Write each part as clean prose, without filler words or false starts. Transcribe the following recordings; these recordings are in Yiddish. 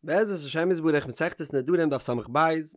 בעזרת השם יתברך מסכת נדרים דף ס"ב,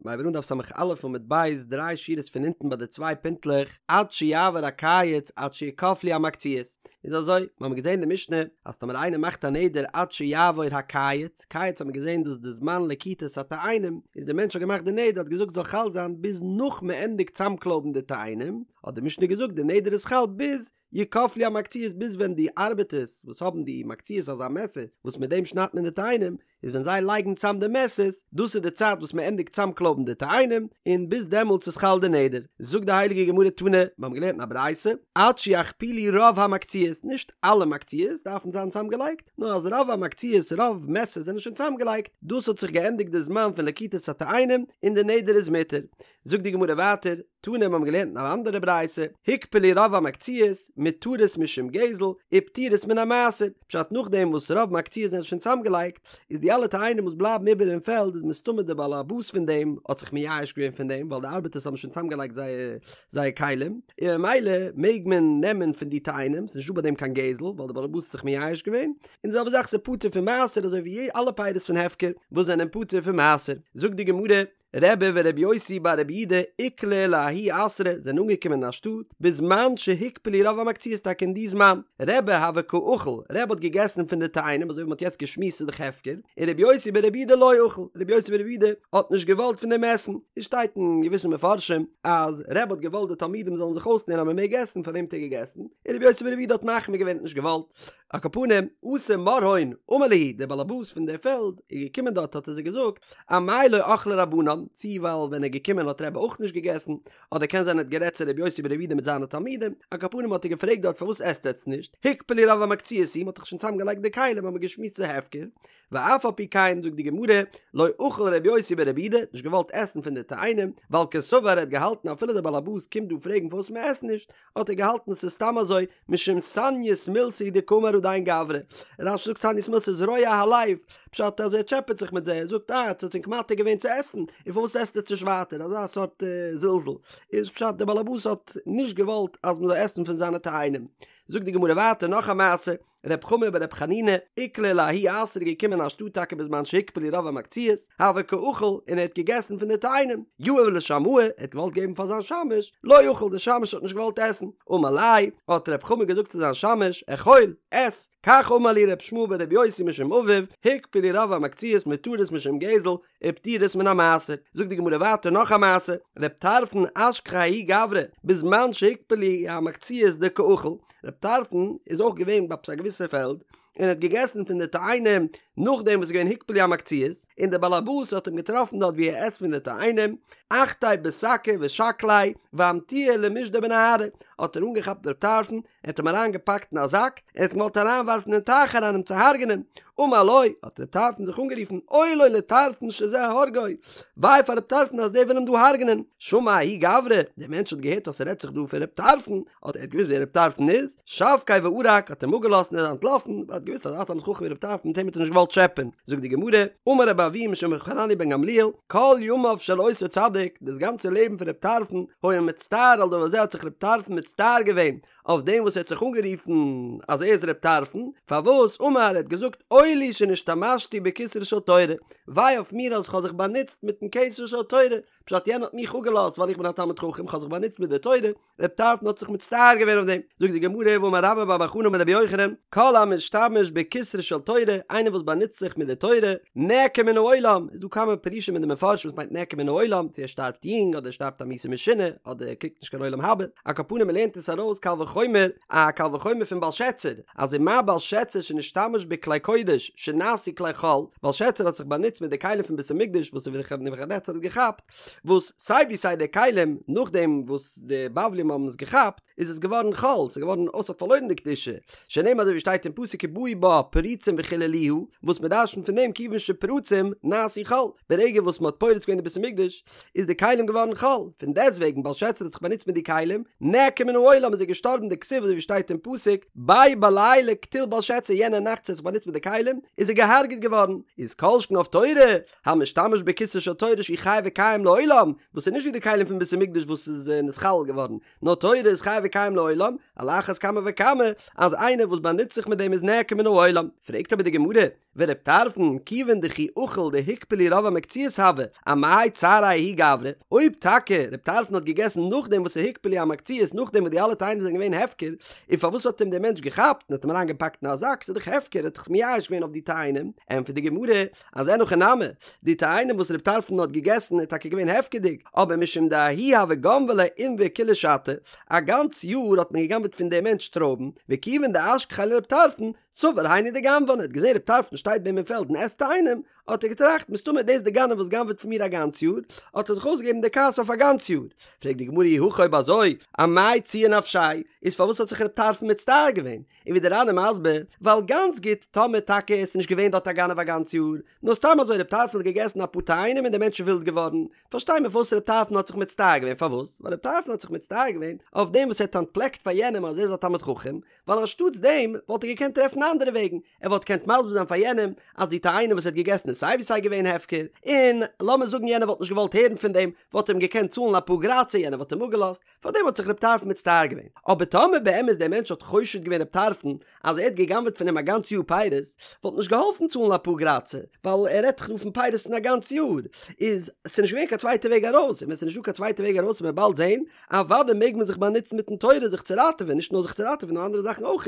מ'הייבט אן דף ס"א עמוד ב', דריי שורות פון אונטן ביי די צוויי פינטלעך, עד שיעבור הקיץ עד שיקפלו המקצועות. איז אזוי, מ'האמיר געזען אין די משנה אז טאמער איינער מאכט א נדר עד שיעבור הקיץ, קיץ האט מען געזען דאס איז די זמן לקיטת התאנים, איז דער מענטש האט געמאכט די נדר האט געזאגט זאל חל זיין ביז נאך מ'ענדיגט צאמקלויבן די תאנים, האט די משנה געזאגט די נדר איז חל ביז יקפלו המקצועות ביז ווען די ארבעטערס וואס האבן די מקצועות אזא מעסער וואס מיט דעם שניידט מען די תאנים איז ווען זיי לייגן צאם די מעסערס דאס איז די צייט וואס מען ענדיגט צאמקלויבן די תאנים און ביז דעמאלטס איז חל די נדר זאגט די הייליגע גמרא תנא מיר האבן געלערנט אין א ברייתא עד שיכפילו רוב המקצועות נישט אלע מקצועות דארפן זיין צאמגעלייגט נאר אז רוב המקצועות רוב מעסערס זענען שוין צאמגעלייגט דאס האט זיך געענדיגט די זמן פון לקיטת התאנים און די נדר איז מותר זאגט די גמרא ווייטער תנא מיר האבן געלערנט אין אן אנדערע ברייתא, הוקפלו רוב המקצועות, מותרות משום גזל, ופטורות מן המעשר, פשט נאכדעם וואס רוב מקצועות זענען שוין צוזאמגעלייגט, איז די אלע תאנים וואס בלייבן איבער אין פעלד איז מסתמא די בעל הבית פון דעם האט זיך מייאש געווען פון דעם ווייל די ארבעטערס האבן שוין צוזאמגעלייגט זייער זייער כלים, און ממילא מעג מען נעמען פון די תאנים, ס'איז נישטא ביי דעם קיין גזל ווייל די בעל הבית האט זיך מייאש געווען, און די זעלבע זאך ס'איז פטור פון מעשר אזוי ווי אלע פירות פון הפקר וואס זענען פטור פון מעשר, זאגט די גמרא, רבי ורבי יוסי בר רבי יהודה איקלעו לההוא אתרא זענען אנגעקומען אין א שטאט בזמן שהוקפלו רוב המקצועות טאקע אין די זמן רבי הוה קא אכיל רבי האט געגעסן פון די תאנים אזוי ווי מ'האט יעצט געשמועסט ס'איז דאך הפקר און רבי יוסי בר רבי יהודה לא אכיל רבי יוסי בר רבי יהודה האט נישט געוואלט פון דעם עסן עס שטייט אין געוויסע מפרשים אז רבי האט געוואלט די תלמידים זאלן זיך אויסלערנען אז מ'מעג עסן פאר דעם האט ער געגעסן און רבי יוסי בר רבי יהודה האט מחמיר געווען האט נישט געוואלט על כל פנים אתא מרהון אמר להו דער באלעבאס פון דער פעלד איז געקומען דארט האט ער זיי געזאגט אמאי לא אכלי רבנן, צי ווייל ווען ער איז געקומען האט רבי אויך נישט געגעסן, אדער קען זיין ער האט גערעדט צו רבי יוסי ברבי יהודה מיט זיינע תלמידים, על כל פנים האט ער געפרעגט דארט פארוואס עסט עטץ נישט, הוקפלו רוב המקצועות הוא, מ'האט דאך שוין צוזאם געלייגט די כלים האט מען געשמועסט ס'איז הפקר, ואף על פי כן זאגט די גמרא, לא אכל רבי יוסי ברבי יהודה, נישט געוואלט עסן פון די תאנים, ווייל קסבר ער האט געהאלטן אפילו דער בעל הבית קומט דא פרעגן פארוואס מ'עסט נישט, האט ער געהאלטן ס'איז סתם אזוי משום סניות מילתא הוא דקאמר הדין גברא. רש"י זאגט סניות מילתא איז רוע הלב, פשט אז ער טשעפעט זיך מיט זיי, ער זאגט אה עטס האטס ענק מתיר געווען צו עסן, און פארוואס עסט עטס נישט ווייטער, אזא סארט זלזול, איז פשט דער באלעבאס האט נישט געוואלט אז מ'זאל עסן פון זיינע תאנים. זאגט די גמרא ווייטער נאך א מעשה, ר' חמא בר' חנינא, איקלע לההוא אתרא געקומען אין א שטאט טאקע בזמן שהוקפלו רוב המקצועות, הוה קא אכיל און ער האט געגעסן פון די תאנים, יהב לשמעיה, ער האט געוואלט געבן פאר זיין שמש, לא אכיל דער שמש האט נישט געוואלט עסן, אמר ליה, האט ר' חמא געזאגט צו זיין שמש, אכול, עס, כך אמר לי ר' ישמעאל בר' יוסי משום אביו, הוקפלו רוב המקצועות מותרות משום גזל, ופטורות מן המעשר. זאגט די גמרא ווייטער נאך א מעשה, ר' טרפון אשכחיה ההוא גברא, בזמן שהוקפלו המקצועות דקאכיל, ר' טרפון איז אויך געווען ביי עפעס א געוויסע פעלד, און האט געגעסן פון די תאנים נאכדעם וואס איז געווען הוקפלו המקצועות, און דער בעל הבית האט אים געטראפן דארט ווי ער עסט פון די תאנים, אחתיה בשקא ושקליה ואמטוה למישדא בנהרא, האט ער אנגעכאפט ר' טרפון, ער האט אים אריין געפאקט אין א זאק, ער האט אים געוואלט אריין ווארפן אין טייך אריין אים צו הרג'נען, אמר לו, האט ר' טרפון זיך אנגערופן, אוי לו לטרפון שזה הורגו, וויי פאר ר' טרפון אז דער וויל אים דא הרג'נען, שמע ההוא גברא, דער מענטש האט געהערט אז ס'רעדט זיך דא פון ר' טרפון, האט ער האט געוואוסט ווער ר' טרפון איז, שבקיה וערק, האט אים אפגעלאזט און ער איז אנטלאפן, ווייל ער האט געוואוסט אז א תלמיד חכם ווי ר' טרפון מיט אים האט ער נישט געוואלט טשעפען, זאגט די גמרא, אמר רבי אבהו משום ר' חנניה בן גמליאל, כל ימיו של אותו צדיק, דאס גאנצע לעבן פון ר' טרפון, היה מצטער על דבר זה האט זיך ר' טרפון מצטער געווען אויף דעם וואס ער האט זיך אנגערופן אז ער איז ר' טרפון, פארוואס אמר ער האט געזאגט אוי לי שנשתמשתי בכתרה של תורה, וויי אויף מיר אז איך האב זיך באנוצט מיטן כתר של תורה, פשט יענער האט מיך אפגעלאזט ווייל איך בין א תלמיד חכם איך האב זיך באנוצט מיט די תורה, ר' טרפון האט זיך מצטער געווען אויף דעם, זאגט די גמרא והאמר רבה בר בר חנה אמר רבי יוחנן, כל המשתמש בכתרה של תורה, איינער וואס באנוצט זיך מיט די תורה, נעקר מן העולם, איז דא כמה פירושים אין די מפרשים וואס מיינט נעקר מן העולם, צו ער שטארבט יונג אדער ער שטארבט א מיתה משונה, אדער ער קריגט נישט קיין עולם הבא, על כל פנים מ'לערנט עס ארויס קל וחומר, א קל וחומר פון בלשצר, אז ומה בלשצר שנשתמש בכלי קודש שנעשו כלי חול, בלשצר האט זיך באנוצט מיט די כלים פון בית המקדש וואס נבוכדנצר האט געכאפט, וואס סיי ווי סיי די כלים נאכדעם וואס די בבלים האבן עס געכאפט איז עס געווארן חול, ס'איז געווארן אויס האט פארלוירן די קדושה, שנאמר אזוי ווי שטייט אין פסוק כי באו בה פריצים וחללוה, וואס מען דרש'נט פון דעם כיוון שפרצום נעשו חול, ברגע וואס מען האט פורץ געווען די בית המקדש איז די כלים געווארן חול, פון דעסטוועגן בלשצר האט זיך באנוצט מיט די כלים, נעקר מן העולם איז ער געשטארבן דכתיב אזוי ווי שטייט אין פסוק בו בלילה קטיל בלשצר יענע נאכט וואס ער האט זיך באנוצט מיט די כלים איז ער געהארגעט געווארן, איז כל שכן אויף תורה המשתמש בכתרה של תורה שהיא חי וקיים לעולם, וואס איז נישט ווי די כלים פון בית המקדש וואס איז נתחלל געווארן, נאר תורה איז חי וקיים לעולם, על אחת כמה וכמה אז איינער וואס באנוצט זיך מיט דעם איז נעקר מן העולם. פרעגט אבער די גמרא, ור' טרפון, כיוון דכי אכיל דהוקפלו רוב המקצועות הוה, אמאי צעריה ההוא גברא, אויב טאקע ר' טרפון האט געגעסן נאכדעם וואס ס'הוקפלו המקצועות נאכדעם וואס די אלע תאנים זענען געווען הפקר, און פארוואס האט אים דער מענטש געכאפט און האט אים אריינגעפאקט אין א זאק, ס'איז דאך הפקר, ער האט זיך מייאש געווען אויף די תאנים, ענטפערט די גמרא, אז אין הכי נמי, די תאנים וואס ר' טרפון האט געגעסן איז טאקע געווען הפקר'דיג, אבער משום דההוא הוה גנבי ליה ענבי כולה שתא, א גאנץ יאר האט מען גע'גנב'עט פון דעם מענטש טרויבן, וכיוון דאשכחיה לר' טרפון, סבר היינו דגנבן, ער האט געזען ר' טרפון שטייט ביי אים אין פעלד און עסט תאנים, האט ער געטראכט, מסתמא איז דאס די גנב וואס גנב'עט פון מיר א גאנץ יאר, האט ער זיך אויסגעגעבן די כעס אויף א גאנץ יאר. פרעגט די גמרא אי הכי אויב אזוי, אמאי ציער נפשיה, איז פארוואס האט זיך ר' טרפון מצטער געווען? און ווי דער ר"ן איז מסביר, ווייל גאנץ גוט טאמער טאקע עס איז נישט געווען דארט א גנב א גאנץ יאר, נאר סתם אזוי ר' טרפון האט געגעסן אפאר תאנים און דער מענטש איז ווילד געווארן, פארשטיי מיר פארוואס ר' טרפון האט זיך מצטער געווען, פארוואס? ווייל ר' טרפון האט זיך מצטער געווען אויף דעם וואס ער האט אנטפלעקט פאר יענעם אז ער איז א תלמיד חכם, ווייל אנשטאטס דעם וואלט ער געקענט טרעפן אנדערע וועגן, ער וואלט געקענט מסביר זיין פאר יענעם אז די תאנים וואס ער האט געגעסן איז סיי ווי סיי געווען הפקר, און לאמיר זאגן יענער וואלט נישט געוואלט הערן פון דעם, וואלט ער אים געקענט צאלן אפאר גרייצער יענער וואלט אים אפגעלאזט, פארדעם האט זיך רב טרפון מצטער געווען. אבער טאמער באמת דער מענטש האט חושד געווען רב טרפון אז ער האט גע'גנב'עט פון אים א גאנץ יאר פירות, וואלט נישט געהאלפן צאלן אפאר גרייצער, ווייל ער רעדט דאך דא פון פירות פון א גאנץ יאר, איז ס'נישט געווען קיין צווייטע וועג ארויס, און ווען ס'נישט דא קיין צווייטע וועג ארויס וועט מען באלד זען, אוודאי מעג מען זיך באנוצן מיטן תורה זיך צו ראטעווען, נישט נאר זיך צו ראטעווען נאר אנדערע זאכן אויך.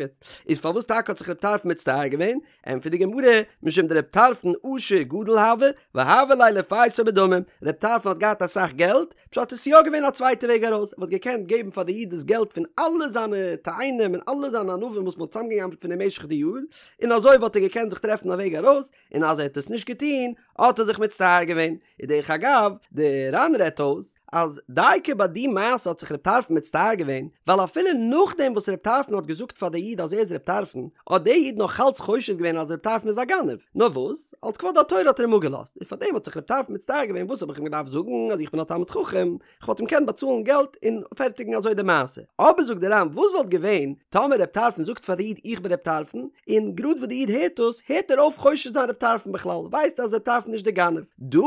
איז פארוואס טאקע האט זיך רב טרפון מצטער געווען? ענטפערט די גמרא, משום דרב טרפון עשיר גדול הוה, והוה ליה לפייסו בדמים, רב טרפון האט געהאט אסאך געלט, פשט עס איז יא געווען א צווייטע וועג ארויס, ער וואלט געקענט געבן פאר די איד דאס געלט פון אלע זיינע תאנים און אלע זיינע ענבים וואס מען האט צוזאמגע'גנב'ט פון אים משך די יאר, און אזוי וואלט ער געקענט זיך טרעפן א וועג ארויס, און אז ער האט עס נישט געטון, האט ער זיך מצטער געווען. און דרך אגב, די ר"ן רעדט אויס, אז דייקא ביי די מעשה האט זיך רב טרפון מצטער געווען, ווייל אפילו נאכדעם וואס רב טרפון האט געזאגט פאר די איד אז ער איז רב טרפון, האט די איד נאך אלץ חושד געווען אז רב טרפון איז א גנב, נאר וואס, אלס כבוד התורה האט ער אים אפגעלאזט, און פארדעם האט זיך רב טרפון מצטער געווען וואס האב איך אים געדארפט זאגן אז איך בין א תלמיד חכם, כ'וואלט אים געקענט באצאלן געלט און פערטיגן אזוי די מעשה. אבער זאגט די ר"ן וואס וואלט געווען טאמער רב טרפון זאגט פאר די איד איך בין רב טרפון, און גראד וואס די איד הערט דאס הערט ער אויף חושד זיין רב טרפון בכלל, ווייסט אז רב טרפון איז נישט די גנב. דא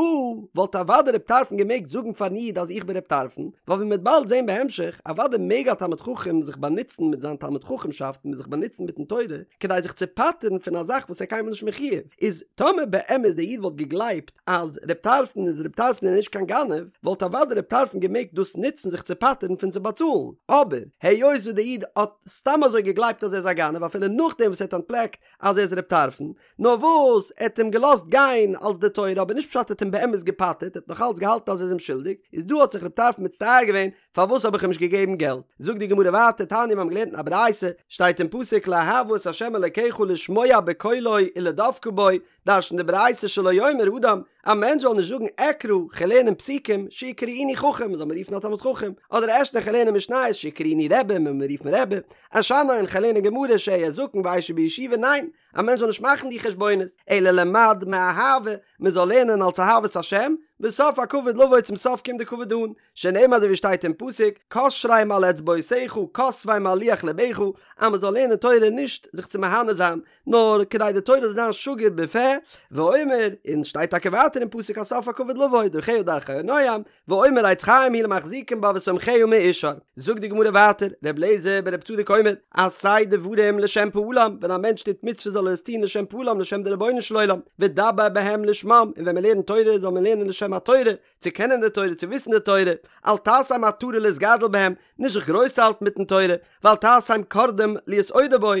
וואלט אוודאי רב טרפון געמעגט זאגן פארן איד אז איך בין רב טרפון, ווייל ווי מ'וועט באלד זען בהמשך, אוודאי מעג א תלמיד חכם זיך באנוצן מיט זיין תלמיד חכם'שאפט און זיך באנוצן מיטן תורה כדי זיך צו פטר'ן פון א זאך וואס ער איז קיינמאל נישט מחויב, איז טאמער באמת די איד וואלט געגלייבט אז רב טרפון איז רב טרפון און נישט קיין גנב, וואלט אוודאי רב טרפון געמעגט דאס נוצן זיך צו פטר'ן פון צו באצאלן, אבער היות וואס די איד האט סתם אזוי געגלייבט אז ער איז א גנב אפילו נאכדעם וואס ער האט אנטפלעקט אז ער איז רב טרפון, נאר וואס ער האט אים געלאזט גיין אלס די תורה אבער נישט פשט ער האט אים באמת געפטר'ט, ער האט נאך אלץ געהאלטן אז ער איז אים שולדיג, איז דא האט זיך רב טרפון מצטער געווען פארוואס האב איך אים נישט געגעבן געלט? זאגט די גמרא ווייטער, תניא מיר האבן געלערנט אין א ברייתא, שטייט אין פסוק לאהבה את ה' אלקיך לשמוע בקולו ולדבקה בו, דרש'נט די ברייתא שלא יאמר אדם, א מענטש זאל נישט זאגן אקרא, כ'על לערנען פסוקים, שיקראוני חכם, מ'זאל מיר רופן א תלמיד חכם, אדער אשנה כ'על לערנען משניות, שיקראוני רבי, מ'זאל מיר רופן רבי, אשנן כ'על לערנען גמרא, שאהיה זקן ואשב בישיבה, ניין, א מענטש זאל נישט מאכן די חשבונות, אלא למד מאהבה, מ'זאל לערנען אלס אהבת השם, וסוף הכבוד לבוא צום סוף קומט די כבוד אן, שנאמר אזוי ווי שטייט אין פסוק, קשרם על אצבעותיך, כתבם על לוח לבך, אז מ'זאל לערנען תורה נישט זיך צו מהנה זיין, נאר כדי די תורה זאל זיין שגור בפה, ואומר, און שטייט טאקע ווייטער אין פסוק אז סוף הכבוד לבוא, דרכיה דרכי נועם, ואומר עץ חיים היא למחזיקים בה ותומכיה מאושר. זאגט די גמרא ווייטער, ר' אליעזר בר' צדוק אומר, עשה דברים לשם פעלם, ווען א מענטש טוט מצוות זאל ער עס טון לשם פעלם לשם די רבונו של עולם, ודבר בהם לשמם, און ווען מען לערנט תורה זאל מען לערנען לשם התורה, צו קענען די תורה, צו וויסן די תורה, אל תעשם עטרה להתגדל בהם, נישט זיך גרויס האלטן מיטן תורה, ואל תעשם קרדום להתעודר בו,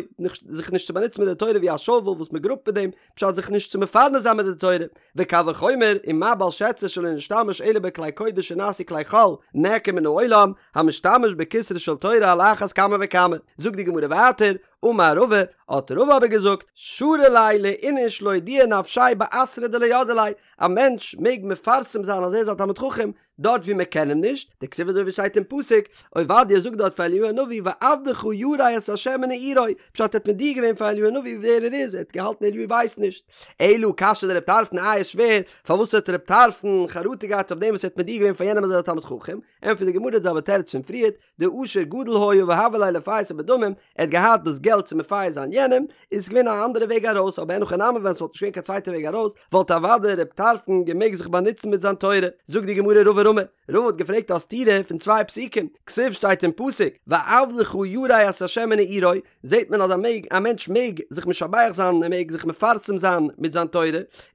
זיך נישט צו באנוצן מיט די תורה ווי א שאוועל וואס מען גראבט מיט דעם, פשט זיך נישט צו מפרנס זיין מיט די תורה, וקל וחומר, ומה בלשצר שלא נשתמש אלא בכלי קודש שנעשו כלי חול, נעקר מן העולם, המשתמש בכתרה של תורה על אחת כמה וכמה. זאגט די גמרא ווייטער, אמר רבא, האט רבא אבער געזאגט, שרי ליה לאיניש לאודועי נפשיה באתרא דלא ידעי ליה, א מענטש מעג מפרסם זיין אז ער איז א תלמיד חכם דארט ווי מען קען אים נישט, דכתיב אזוי ווי שטייט אין פסוק, עובדיה זאגט דארט פאר אליהו הנביא ועבדך ירא את ה' מנעורי, פשט ער האט מודיע געווען פאר אליהו הנביא ווער ער איז, ער האט געהאלטן אליהו ווייסט נישט. אלא קשיא דרב טרפון איי איז שווער, פארוואס האט רב טרפון חרטה געהאט אויף דעם וואס ער האט מודיע געווען פאר יענעם אז ער איז א תלמיד חכם, ענטפערט די גמרא די זעלבע תירוץ פון פריערט, דעשיר גדול היה והוה ליה לפייסו בדמים, ער האט געהאט דאס געלט. געלט צו מפייס זיין יענעם, איז עס געווען א אנדערע וועג ארויס, אבער אין הכי נמי ווען ס'וואלט נישט געווען קיין צווייטע וועג ארויס, וואלט אוודאי ר' טרפון געמעגט זיך באנוצן מיט זיין תורה. זאגט די גמרא רבא רמי, רבא האט געפרעגט א סתירה פון צוויי פסוקים, כתיב שטייט אין פסוק, ועבדך ירא את ה' מנעורי, זעט מען אז א מעג א מענטש מעג זיך משבח זיין ער מעג זיך מפרסם זיין מיט זיין תורה,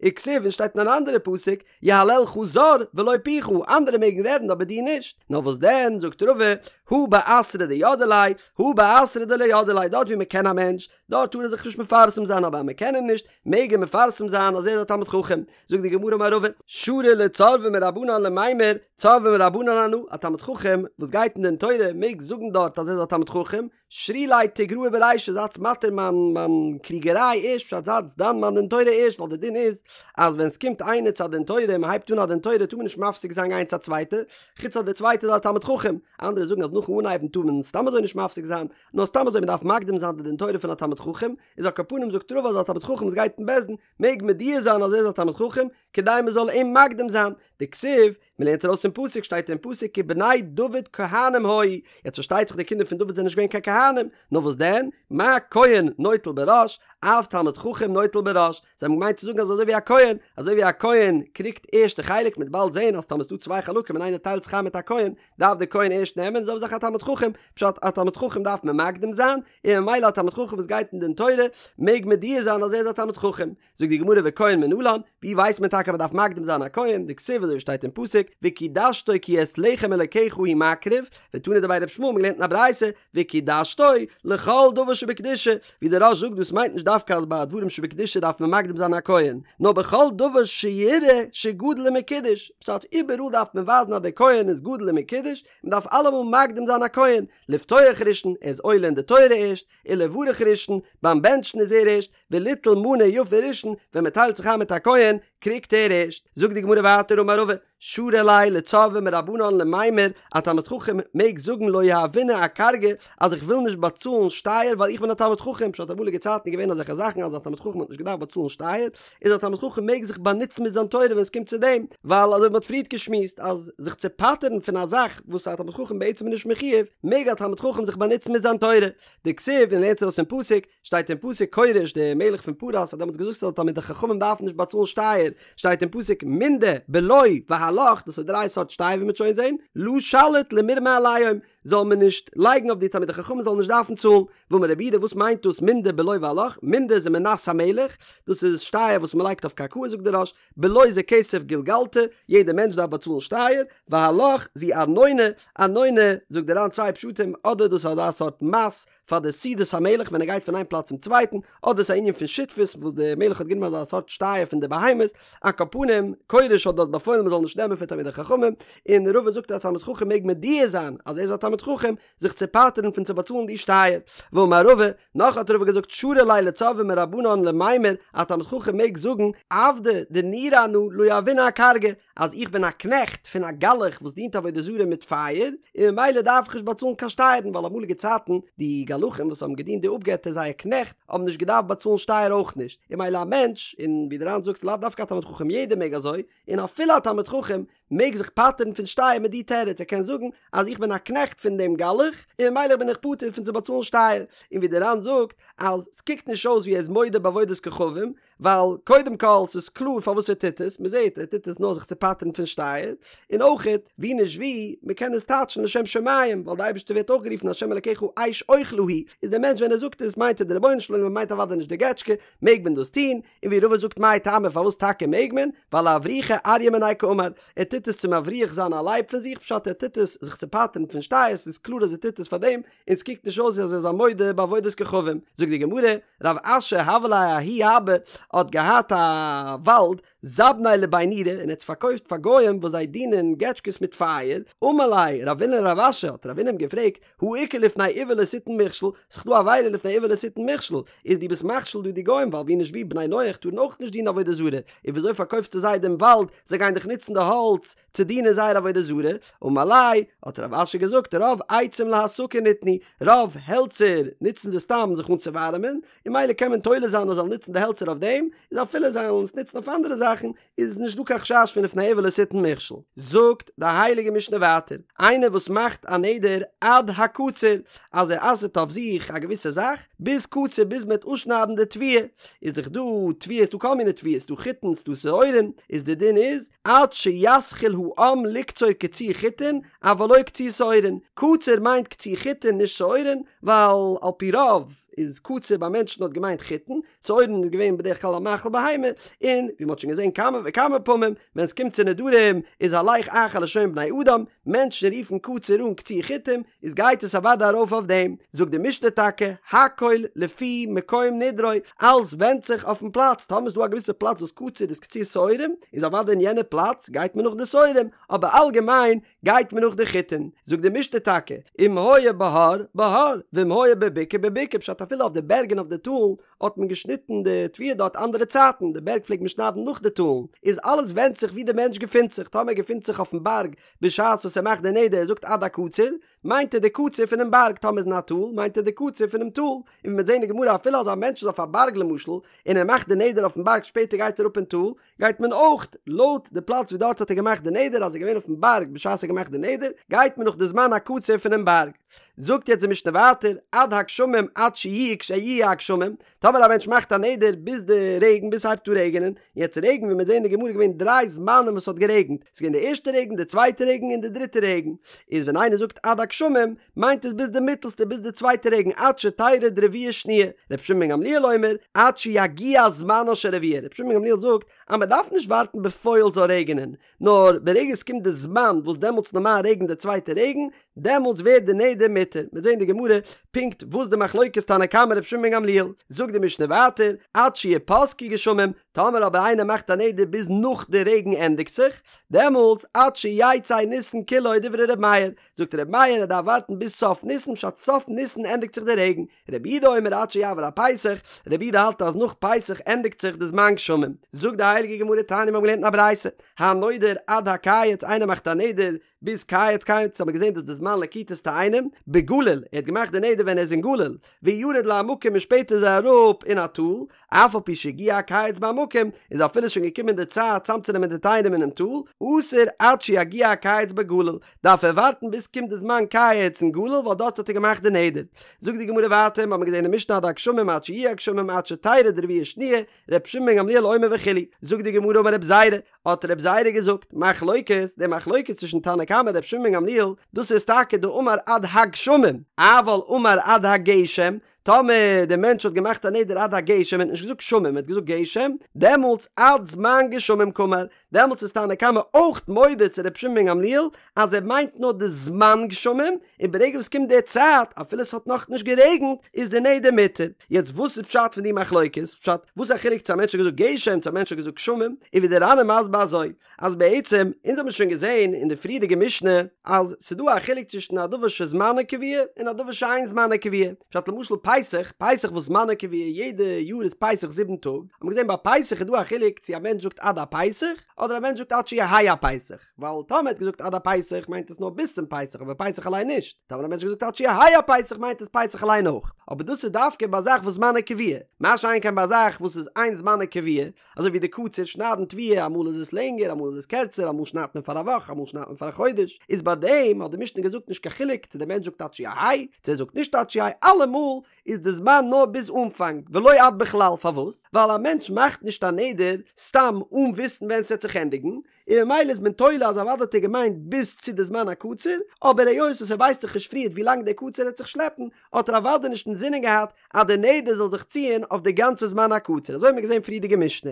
וכתיב און שטייט אין אן אנדערע פסוק, יהללך זר ולא פיך, אנדערע מעגן רעדן אבער דו נישט, נאר וואס דען, זאגט רבא, הא באתרא דידעי ליה, הא באתרא דלא ידעי ליה, דארט ווי מען קען א מענטש, דארט טאר ער זיך נישט מפרסם זיין אבער אז מען קען אים נישט, מעג ער מפרסם זיין אז ער איז א תלמיד חכם. זאגט די גמרא אמר רבא, שרי לצורבא מרבנן למימר, צורבא מרבנן אנא, א תלמיד חכם וואס גייט אין דין תורה מעג זאגן דארט אז ער איז א תלמיד חכם, שרו לי תיגראי ברישא זייטס מתיר מיין מיין קריגעריי ערשט פשט זייטס דן מיין דין תורה ערשט ווייל די דין איז אז ווען סקומט איינער צו א דין תורה און מהייבט אן א דין תורה טאר מען נישט מפסיק זיין גיין צו א צווייטע חוץ אז די צווייטע איז א תלמיד חכם אנדערע זאגן אז נאכן אנהייבן טאר מען סתם אזוי נישט מפסיק זיין נאר סתם אזוי מדארף מקדים זיין די דין תורה פון א תלמיד חכם איז על כל פנים זאגט רבא אז א תלמיד חכם וואס גייט אין בית דין מעג מודיע זיין אז ער איז א תלמיד חכם כדי מזאל אים מקדים זיין דכתיב מען לערנט ארויס פון פסוק שטייט אין פסוק כי בני דוד כהנים היו, יעצט פארשטייט זיך די קינדער פון דוד זענען נישט געווען קיין כהנים, נאר וואס דען, מה כהן נוטל בראש, אף תלמיד חכם נוטל בראש, זיי האבן געמיינט צו זאגן אז אזוי ווי א כהן, אזוי ווי א כהן קריגט ערשט די חלק, מ'וועט באלד זען אז טאמער ס'דא צוויי חלקים און איינער טיילט זיך איין מיט א כהן, דארף דער כהן ערשט נעמען, זעלבע זאך א תלמיד חכם, פשט א תלמיד חכם דארף מען מקדים זיין, און ממילא א תלמיד חכם וואס גייט אין דין תורה, מעג מודיע זיין אז ער איז א תלמיד חכם. זאגט די גמרא וכהן מנלן, ווי ווייסט מען טאקע אז מען דארף מקדים זיין א כהן, דכתיב אזוי שטייט אין פסוק, וקדשתו כי את לחם אלקיך הוא מקריב, ותנא דבי רבי ישמעאל מ'האט געלערנט אין א ברייתא, וקדשתו לכל דבר שבקדושה, ווי דער רא"ש זאגט דאס מיינט נישט דווקא אז ביי דברים שבקדושה דארף מען מקדים זיין א כהן, נאר בכל דבר שיראה שגדול ומקודש, פשט איבעראל דארף מען ווייזן אז דער כהן איז גדול ומקודש, מען דארף אלעמאל מקדים זיין א כהן, לפתוח ראשון, ער איז עולה אין די תורה ערשט, ולברך ראשון, ביים בענטשן איז ער ערשט, וליטול מנה יפה ראשון, ווען מען טיילט זיך איין מיט א כהן, קריגט ער ערשט. זאגט די גמרא ווייטער אמר רבא, שרי ליה לצורבא מרבנן למימר, א תלמיד חכם מעג זאגן לא יהיבנא אכרגא, אז איך וויל נישט באצאלן שטייער ווייל איך בין א תלמיד חכם, פשט אמאליגע צייטן איז געווען אזעלכע זאכן אז א תלמיד חכם האט נישט געדארפט באצאלן שטייער, איז א תלמיד חכם מעג זיך באנוצן מיט זיין תורה ווען עס קומט צו דעם, ווייל אזוי ווי מען האט פריערט געשמועסט אז זיך צו פטר'ן פון א זאך וואס א תלמיד חכם בעצם איז נישט מחויב, מעג א תלמיד חכם זיך באנוצן מיט זיין תורה. דכתיב און לערנט ארויס פון פסוק, שטייט אין פסוק כורש דער מלך פון פרס האט דעמאלטס געזאגט אז תלמידי חכמים דארפן נישט באצאלן שטייער, שטייט אין פסוק מנדה בלו והלך, דאס איז דריי סארט שטייער ווי מ'וועט שוין זען, לא שליט למרמא עליהם, זאל מען נישט לייגן אויף די תלמידי חכמים זאלן נישט דארפן צאלן, ואמר רב יהודה וואס מיינט דאס מנדה בלו והלך, מנדה איז מנת המלך, דאס איז שטייער וואס מ'לייגט אויף קרקעות זאגט דער רא"ש, בלו זה כסף גולגלתא, יעדע מענטש דארף באצאלן שטייער, והלך זו ארנונא, ארנונא זאגט דער ר"ן צוויי פשטים, אדער דאס איז אזא סארט מס פאר די סעודת המלך ווען ער גייט פון איין פלאץ צום צווייטן, אדער ס'איז א ענין פון שותפות וואס דער מלך האט גענומען אזא סארט שטייער פון די בהמות, על כל פנים, כורש האט דארט באפוילן מען זאל נישט נעמען פון תלמידי חכמים, און רבא זאגט אז א תלמיד חכם מעג מודיע זיין אז ער איז א תלמיד חכם, זיך צו פטר'ן פון צו באצאלן די שטייער. ואמר רבא, נאך האט רבא געזאגט שרי ליה לצורבא מרבנן למימר, א תלמיד חכם מעג זאגן, עבדא דנורא אנא לא יהיבנא אכרגא, אז איך בין א קנעכט פון א גלח וואס דינט עבודה זרה מיט פייער, און ממילא דארף איך נישט באצאלן קיין שטייערן, ווייל אמאליגע צייטן די גלחים וואס האבן געדינט די אפגעטער זייער קנעכט האבן נישט געדארפט באצאלן שטייער אויך נישט, און ממילא א מענטש, און ווי דער ר"ן זאגט לאו דווקא א תלמיד חכם יעדער מעג אזוי, און אפילו א תלמיד חכם מעג זיך פטר'ן פון שטייער מיט די תירוץ, ער קען זאגן אז איך בין א קנעכט פון דעם גלח, און ממילא בין איך פטור פון צו באצאלן שטייער, און ווי דער ר"ן זאגט אז ס'קוקט נישט אויס ווי ער איז מודה בעבודת כוכבים, ווייל קודם כל ס'איז קלאר פארוואס ער טוט עס, מ'זעט ער טוט עס נאר זיך צו פטר'ן פון שטייער, און אויכעט ווי נישט ווי, מ'קען עס טייטשן לשם שמים, ווייל די אייבערשטער ווערט אויך גערופן השם אלקיך אש אוכלה הוא, איז דער מענטש ווען ער זאגט עס מיינט ער די רבונו של עולם און מיינט אוודאי נישט די געטשקע, מעג מען דאס טון, און ווי רבא זאגט מאי טעמא פארוואס טאקע מעג מען, ווייל לאברוחי אריא מיניה קאמר, ער טוט עס צו מבריח זיין א לייב פון זיך פשט ער טוט עס זיך צו פטר'ן פון שטייער, ס'איז קלאר אז ער טוט עס פאר דעם, און ס'קוקט נישט אויס ווי אז ער איז א מודה בעבודת כוכבים, זאגט די גמרא, רב אשי הוה ליה ההוא אבא האט געהאט א וואלד, זבניה לבי נורא, און ער האט עס פארקויפט פאר גוים וואס זיי דינען געטשקעס מיט פייער, אמר ליה רבינא לרב אשי, האט רבינא אים געפרעגט, הא איכא לפני עור לא תתן מכשול, ס'איז דא א עבירה לפני עור לא תתן מכשול, איז דו ביסט מכשיל דא די גוים ווייל ווי נישט ווי בני נח טארן אויך נישט דינען עבודה זרה, און וויאזוי פארקויפסטו זיי דעם וואלד, זיי גייען דאך נוצן די האלץ צו דינען זייער עבודה זרה, אמר ליה, האט רב אשי געזאגט, רוב עצים להסקה ניתנו, רוב העלצער נוצן זיי סתם זיך אנצואווארעמען, און ממילא קען מען תולה זיין אז זיי זאלן נוצן די העלצער אויף דעם, איז אפילו זיי זאלן עס נוצן אויף אנדערע זאכן, איז נישט דא קיין חשש פון לפני עור לא תתן מכשול. זאגט די הייליגע משנה ווייטער, איינער וואס מאכט א נדר עד הקציר, אז ער אסר'ט אויף. אויף זיך א געוויסע זאך ביז קציר ביז מ'וועט אפשניידן די תבואה, איז דאך דא תבואה ס'דא כל מיני תבואות ס'דא חיטין ס'דא שעורים, איז די דין איז עד שיתחיל העם לקצור קציר חיטין אבל לא קציר שעורין, קציר מיינט קציר חיטין נישט שעורין, ווייל על פי רוב איז קציר ביי מענטשן האט געמיינט חיטין, שעורין איז געווען בדרך כלל א מאכל בהמה, און ווי מ'האט שוין געזען כמה וכמה פעמים, ווען ס'קומט צו נדרים איז הלך אחר לשון בני אדם, מענטשן רופן קציר אן קציר חיטים, איז גייט עס אוודאי ארויף אויף דעם, זאגט די משנה טאקע, הכל לפי מקום נדרו, אלעס ווענדט זיך אויפן פלאץ, טאמער איז דא א געוויסע פלאץ וואס קציר איז קציר שעורים, איז אוודאי אין יענע פלאץ גייט מען נאך די שעורים, אבער אלגעמיין גייט מען נאך די חיטין, זאגט די משנה טאקע, אם היה בהר, בהר, ואם היה בבקעה, בבקעה, פשט אפילו אויף די בערג און אויף די טאלן האט מען געשניטן די תבואה דארט אנדערע צייטן, די בערג פלעגט מען שניידן נאך די טאלן, איז אלעס ווענדט זיך ווי די מענטש געפינט זיך, טאמער ער געפינט זיך אויפן בארג בשעת וואס ער מאכט די נדר ער זאגט עד הקציר, מיינט ער די קציר פונעם בארג, טאמער איז אין א טאל מיינט ער די קציר פונעם טאל, און ווי מ'וועט זען אין גמרא אפילו אז א מענטש איז אויף א בארג למשל און ער מאכט די נדר אויפן בארג שפעטער גייט ער אראפ אין טאל, גייט מען אויך לויט די פלאץ ווי דארט האט ער געמאכט די נדר אז ער איז געווען אויפן בארג בשעת ער האט געמאכט די נדר, גייט מען נאך די זמן הקציר פונעם בארג. זאגט יעצט די משנה ווייטער, עד הגשמים עד שיהי' כשיהי' הגשמים, טאמער א מענטש מאכט א נדר ביז די רעגן ביז ס'הייבט אן רעגענען, יעצט רעגן ווי מ'וועט זען אין די גמרא איז געווען דריי זמנים וואס ס'האט גערעגנט, ס'איז געווען די ערשטע רעגן די צווייטע רעגן און די דריטע רעגן, איז ווען איינער זאגט עד הגשמים מיינט עס ביז די מיטעלסטע ביז די צווייטע רעגן עד שתרד רביעה שניה, רבי שמעון בן גמליאל אומר עד שיגיע זמנה של רביעה, רבי שמעון בן גמליאל זאגט אז מען דארף נישט ווארטן בפועל זאל רעגענען, נאר ברגע עס קומט די זמן וואס דעמאלטס נארמאל רעגנט די צווייטע רעגן, דעמאלטס ווערט די נדר מותר, מ'וועט זען אין די גמרא פונקט וואס די מחלוקת תנא קמא רבי שמעון בן גמליאל, זאגט די משנה ווייטער עד שיפסקו גשמים, טאמער אבער איינער מאכט א נדר ביז נאך די רעגן ענדיגט זיך, דעמאלטס עד שיצא ניסן כולו דברי ר' מאיר, זאגט ר' מאיר ער דארף ווארטן ביז סוף ניסן פשט סוף ניסן ענדיגט זיך די רעגן, רבי יהודה אומר עד שיעבור הפסח, רבי יהודה האלט אז נאך פסח ענדיגט זיך די זמן גשמים, זאגט די הייליגע גמרא תניא מיר האבן געלערנט אין א ברייתא, הנודר עד הקיץ איינער מאכט א נדר ביז קיץ קיץ האט מען געזען דאס די זמן לקיטת תאנים, בגליל ער האט געמאכט די נדר ווען ער איז אין גליל, וירד לעמקים און שפעטער איז ער אראפ אין א טאל, אף על פי שהגיע הקיץ בעמקים, איז אפילו שוין געקומען די צייט צאמצונעמען די תאנים אינעם טאל, אסור עד שיגיע הקיץ בגליל, דארף ער ווארטן ביז קומט די זמן קיץ אין גליל ווייל דארט האט ער געמאכט די נדר. זאגט די גמרא ווייטער, מ'האמיר געזען אין משנה עד הגשמים עד שיהיו הגשמים עד שתרד רביעה שניה, ר' שמעון בן גמליאל אומר וכו', זאגט די גמרא אמר רב זירא, האט רב זירא געזאגט, מחלוקת, די מחלוקת צווישן תנא קמא און ר' שמעון בן גמליאל, דאס איז טאקע דאמר עד הגשמים, אבל אמר עד הגשם, טאמער דער מענטש האט געמאכט א נדר עד הגשם, ער האט נישט געזאגט גשמים, ער האט געזאגט גשם, דעמאלטס עד זמן גשמים קאמר, דעמאלטס איז תנא קמא אויך מודה צו ר' שמעון בן גמליאל אז ער מיינט נאר די זמן גשמים, און ברגע וואס קומט די צייט, אפילו עס האט נאכנישט גערעגנט, איז די נדר מותר. יעצט וואס איז פשט פון די מחלוקת? פשט, וואס איז א חילוק צו א מענטש האט געזאגט גשם צו א מענטש האט געזאגט גשמים? איז ווי די ר"ן איז מסביר אזוי, אז בעצם, אונז האבן שוין געזען אין די פריערדיגע משנה, אז ס'איז דא א חילוק צווישן א דבר שזמנו קבוע און א דבר שאין זמנו קבוע. פשט למשל פסח, פסח וואס זמנו קבוע, יעדע יאר איז פסח זיבן טאג, האט מען געזען ביי פסח איז דא א חילוק צו א מענטש זאגט עד הפסח, אדער א מענטש זאגט עד שיהא הפסח. ווייל טאמער האט געזאגט עד הפסח מיינט עס נאר ביז צום פסח אבער פסח אליין נישט, טאמער א מענטש האט געזאגט עד שיהא הפסח מיינט עס פסח אליין אויך, אבער דאס איז דווקא ביי א זאך וואס זמנו קבוע, מה שאין כן ביי א זאך וואס איז אין זמנו קבוע, אזוי ווי די קציר שניידן תבואה אמאל איז עס לענגער אמאל איז עס קערצער אמאל שניידט מען פאר א וואך אמאל שניידט מען פאר א חודש, איז ביי דעם האט די משנה געזאגט נישט קיין חילוק צו דער מענטש זאגט עד שיהא צו ער זאגט נישט עד שיהא אלעמאל איז די זמן נאר ביז אנפאנג ולא עד בכלל פארוואס? ווייל א מענטש מאכט נישט א נדר סתם אן וויסן ווען ס'וועט זיך ענדיגן, און ממילא איז מען תולה אז אוודאי האט ער געמיינט ביז צו די זמן הקציר, אבער היות וואס ער ווייסט דאך נישט פריערט ווי לאנג דער קציר העט זיך שלעפן, האט ער אוודאי נישט אינזינען געהאט אז די נדר זאל זיך ציען אויף די גאנצע זמן הקציר, אזוי האט מען געזען פריערדיגע משנה.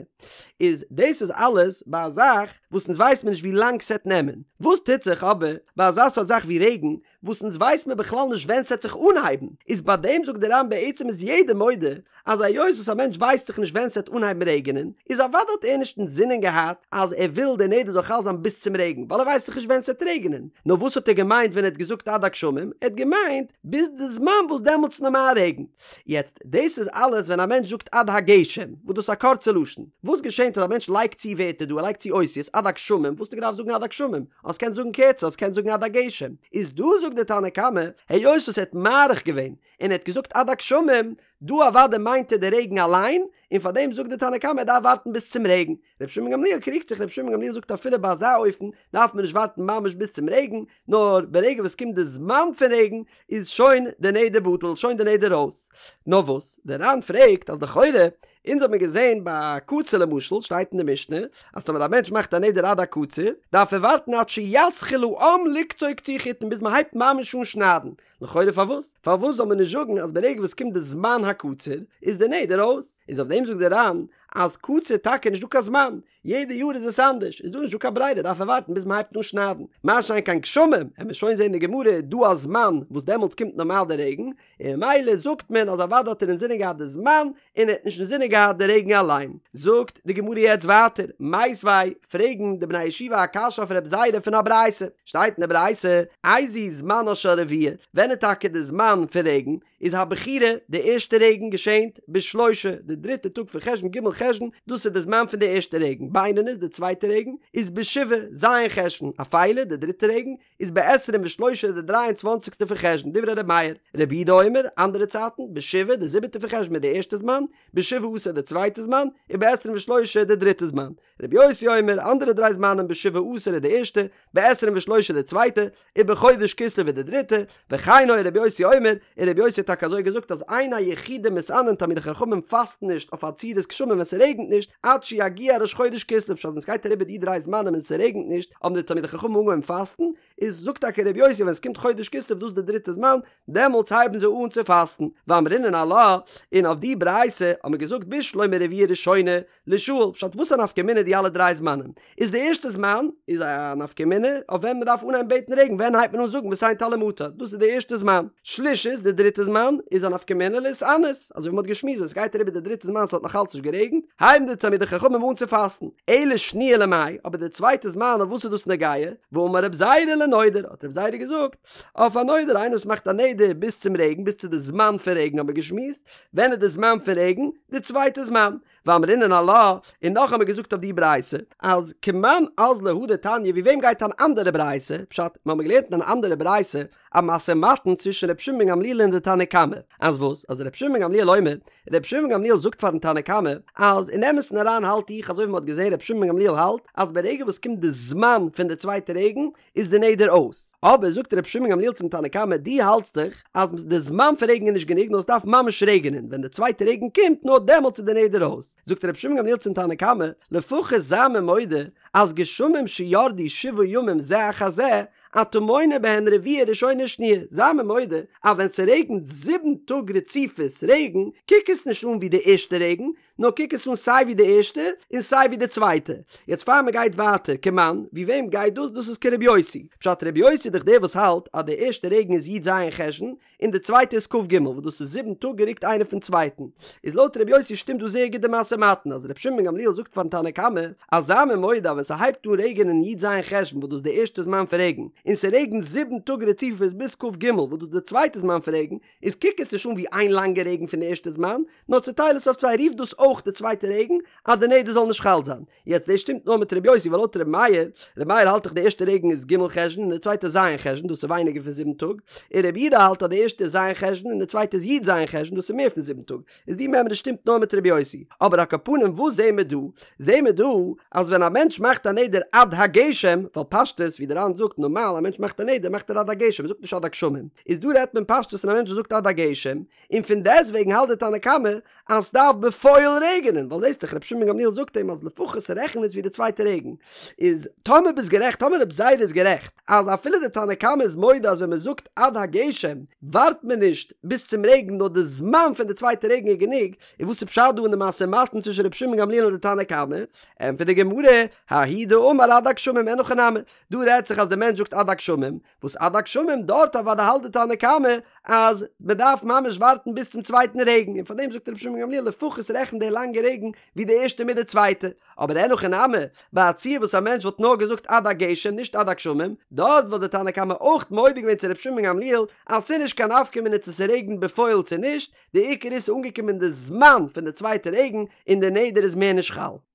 איז דאס איז אלעס ביי א זאך וואס אונז ווייסט מען נישט ווי לאנג ס'עט נעמען, וואס טוט זיך אבער ביי אזא סארט זאך ווי רעגן, וואס אונז ווייס מיר בכלל נישט ווען ס'עט זיך אנהייבן, איז ביי דעם זאגט דער ר"ן בעצם איז יעדער מודה אז היות וואס א מענטש ווייסט דאך נישט ווען ס'עט אנהייבן רעגענען, איז אוודאי האט ער נישט אינזינען געהאט אז ער וויל דער נדר זאל חל זיין ביז צום רעגן, ווייל ער ווייסט דאך נישט ווען ס'עט רעגענען, נאר וואס האט ער געמיינט ווען ער האט געזאגט עד הגשמים, ער האט געמיינט ביז די זמן וואס דעמאלטס נארמאל רעגן. יעצט, דאס איז אלעס ווען א מענטש זאגט עד הגשם, וואס דאס איז א קורצע לשון. וואס געשענט אז א מענטש לייגט צו ווערטער דא, ער לייגט צו אותיות, עד הגשמים, וואס האסטו געדארפט זאגן עד הגשמים? האסט געקענט זאגן קערצער, האסט געקענט זאגן עד הגשם. איז דא זאגט דער תנא קמא, היות וואס ער האט מאריך געווען, און ער האט געזאגט עד הגשמים, דא אוודאי מיינט ער די רעגן אליין, און פאר דעם זאגט די תנא קמא ער דארף ווארטן ביז צום רעגן. רבי שמעון גמליאל קריגט זיך, רבי שמעון גמליאל זאגט אפילו ביי אזא אופן דארף מען נישט ווארטן ממש ביז צום רעגן, נאר ברגע וואס קומט די זמן פון רעגן איז שוין די נדר בטל, שוין די נדר אויס. נאר וואס, דער ר"ן פרעגט אז לכאורה, אונז האט מען געזען ביי קציר למשל, שטייט אין די משנה, אז טאמער א מענטש מאכט א נדר עד הקציר, דארף ער ווארטן עד שיתחיל העם לקצור קציר חיטין ביז מען הייבט ממש אן שניידן, לכאורה פארוואס? פארוואס זאל מען נישט זאגן אז ברגע וואס קומט די זמן הקציר איז די נדר אויס? איז אויף דעם זאגט די ר"ן אז קציר טאקע נישט דא קיין זמן, יעדע יאר איז עס אנדערש, איז דא נישט דא קיין ברירה דארף ער ווארטן ביז מען הייבט אן שניידן, מה שאין כן גשמים, עמיר שוין זען אין די גמרא איז דא א זמן וואס דעמאלטס קומט נארמאל די רעגן, און ממילא זאגט מען אז אוודאי האט ער אינזינען געהאט די זמן און ער האט נישט אינזינען געהאט די רעגן אליין. זאגט די גמרא יעצט ווייטער, מיתיבי, פרעגן די בני ישיבה א קשיא אויף רב זירא פון א ברייתא, שטייט אין די ברייתא, איזהו זמנה של רביעה, ווען איז טאקע די זמן פון רעגן, איז הבכירה, די ערשטע רעגן געשענט, בשלושה, די דריטע טאג פון חשון ג' חשון, דאס איז די זמן פון די ערשטע רעגן, בינונית, די צווייטע רעגן, איז בשבעה, ז' חשון, אפילה, די דריטע רעגן, איז בעשרים ושלושה די דריי און צוואנציגסטע פון חשון, דברי ר' מאיר, רבי יהודה אומר, אנדערע צייטן, בשבעה די זיבעטע פון חשון איז די ערשטע זמן, בשבעה עשר די צווייטע זמן, ובעשרים ושלושה די דריטע זמן. רבי יוסי אומר, אנדערע דריי זמנים, בשבעה עשר איז די ערשטע, בעשרים ושלושה די צווייטע, ובחודש כסלו איז די דריטע, וכן היה רבי יוסי אומר, און רבי יוסי האט טאקע אזוי געזאגט אז אין היחידים מתענין תלמידי חכמים פאסטן נישט אויף עצירת גשמים ווען ס'רעגנט נישט עד שיגיע ראש חודש כסלו פשט ווען ס'גייט אריבער די דריי זמנים און ס'רעגנט נישט האבן די תלמידי חכמים אנגעהויבן פאסטן, איז זאגט טאקע רבי יוסי ווען ס'קומט חודש כסלו דאס איז די דריטע זמן דעמאלטס הייבן זיי אן צו פאסטן, ואמרינן עלה, און אויף די ברייתא האט מען געזאגט בשלמא רביעה ראשונה לישאל, פשט וואס א נפקא מינה די אלע דריי זמנים? איז די ערשטע זמן איז א נפקא מינה אויף ווען מ'דארף אנהייבן בעטן רעגן ווען הייבט מען אן זאגן ותן טל ומטר דאס איז די ערשטע זמן, שלישית די דריטע זמן איז א נפקא מינה להתענות אזוי ווי מ'האט געשמועסט ווען ס'גייט אריבער די דריטע זמן ס'האט נאך אלץ נישט גערעגנט הייבן די תלמידי חכמים אן צו פאסטן, אלא שניה למאי, אבער די צווייטע זמן אויף וואס איז דאס נוגע? ואמר רב זירא לנודר האט רב זירא געזאגט אויף א נודר איינער וואס מאכט א נדר ביז צום רעגן ביז צו די זמן פון רעגן האט מען געשמועסט ווען איז די זמן פון רעגן? די צווייטע זמן ואמרינן עלה, און נאך האמיר געזאגט אויף די ברייתא, אז כמאן אזלא הא דתניא ווי וועם גייט אן אנדערע ברייתא, פשט, מיר האבן געלערנט אין אן אנדערע ברייתא א משא ומתן צווישן ר' שמעון בן גמליאל און די תנא קמא, אז וואס? אז ר' שמעון בן גמליאל אומר, ר' שמעון בן גמליאל זאגט פארן תנא קמא, אז אין אמת'ן אריין האלט איך אזוי ווי מ'האט געזען ר' שמעון בן גמליאל האלט, אז ברגע וואס קומט די זמן פון די צווייטע רעגן, איז די נדר אויס. אבער זאגט רבי שמעון גמליאל צום תנא קמא, דו האלטסט דאך אז די זמן פון רעגן איז נישט גענוג נאר עס דארף ממש רעגענען, ווען די צווייטע רעגן קומט נאר דעמאלטס איז די נדר אויס. זאגט רבי שמעון גמליאל צום תנא קמא, לפחות זיי מיר מודה אז גשמים שירדו שבעה ימים זה אחר זה, אתה מונה בהן רביעה ראשונה ושניה, זיי מיר מודה אז ווען ס'רעגנט זיבן טאג רציפות רעגן, קוק עס נישט אן ווי די ערשטע רעגן, נאר קוק עס אן סיי ווי די ערשטע און סיי ווי די צווייטע. יעצט פאר מען גייט ווייטער, כמאן, ווי וועם גייט דאס? דאס איז כרבי יוסי. פשט רבי יוסי איז דאך דער וואס האלט אז די ערשטע רעגן איז י"ז חשון און די צווייטע איז כ"ג וואס דאס איז זיבן טאג גערוקט איינער פון צווייטן. איז לויט רבי יוסי שטימט דא זייער גוט די משא ומתן אז רבי שמעון בן גמליאל זאגט פארן תנא קמא אז זיי מיר מודה אז ווען ס'הייבט אן רעגענען י"ז חשון וואס דאס איז די ערשטע זמן פון רעגן און ס'רעגנט זיבן טאג רציפות ביז כ"ג וואס דאס איז די צווייטע זמן פון רעגן איז קוק עס נישט אן ווי איין לאנגע רעגן פון די ערשטע זמן, נאר צוטייל עס אויף צוויי רוף דאס אויך די צווייטע רעגן, אז די נדר זאל נישט חל זיין. יעצט דאס שטימט נאר מיט ר' יוסי ווייל לויט ר' מאיר, ר' מאיר האלט דאך די ערשטע רעגן איז ג' חשון און די צווייטע ז' חשון דאס איז ווייניגער פון זיבן טאג, און ר' יהודה האלט אז די ערשטע איז ז' חשון און די צווייטע איז י"ז חשון דאס איז מער פון זיבן טאג, איז די מימרא שטימט נאר מיט ר' יוסי. אבער על כל פנים וואס זעהן מיר דא? זעהן מיר דא אז ווען א מענטש מאכט א נדר עד הגשם, ווייל פשטות ווי די ר"ן זאגט נארמאל א מענטש מאכט א נדר מאכט ער עד הגשם ער זאגט נישט עד הגשמים, איז דא רעדט מען פשטות פון א מענטש וואס זאגט עד הגשם, און פון דעסט וועגן האלט די תנא קמא אז סדארף בפועל רעגענען, ווייל זעהסט דאך רבי שמעון בן גמליאל זאגט אים אז לפחות רעכן עס ווי די צווייטע רעגן, איז טאמער ביסט גערעכט טאמער רבי זירא איז גערעכט אז אפילו די תנא קמא איז מודה אז ווען מען זאגט עד הגשם ווארט מען נישט ביז צום רעגן נאר די זמן פון די צווייטע רעגן איז גענוג, און וואס איז פשט דא אין די משא ומתן צווישן רבי שמעון גמליאל און די תנא קמא? ענטפערט די גמרא, ההוא דאמר עד הגשמים אין הכי נמי, דא רעדט זיך אז די מענטש זאגט עד הגשמים, וואס עד הגשמים דארט אוודאי האלט די תנא קמא אז מען דארף ממש ווארטן ביז צום צווייטן רעגן און פארדעם זאגט רבי שמעון גמליאל לפחות רעכן די לאנגע רעגן ווי די ערשטע מיט די צווייטע, אבער אין הכי נמי, ביי א ציור וואס א מענטש וואלט נאר געזאגט עד הגשם נישט עד הגשמים, דארט וואלט די תנא קמא אויך מודה געווען צו רבי שמעון גמליאל אז ס'איז נישט קיין נפקא מינה צו ס'רעגנט בפועל צו נישט, די עיקר איז ס'אנגעקומען די זמן פון די צווייטע רעגן און די נדר איז מער נישט חל.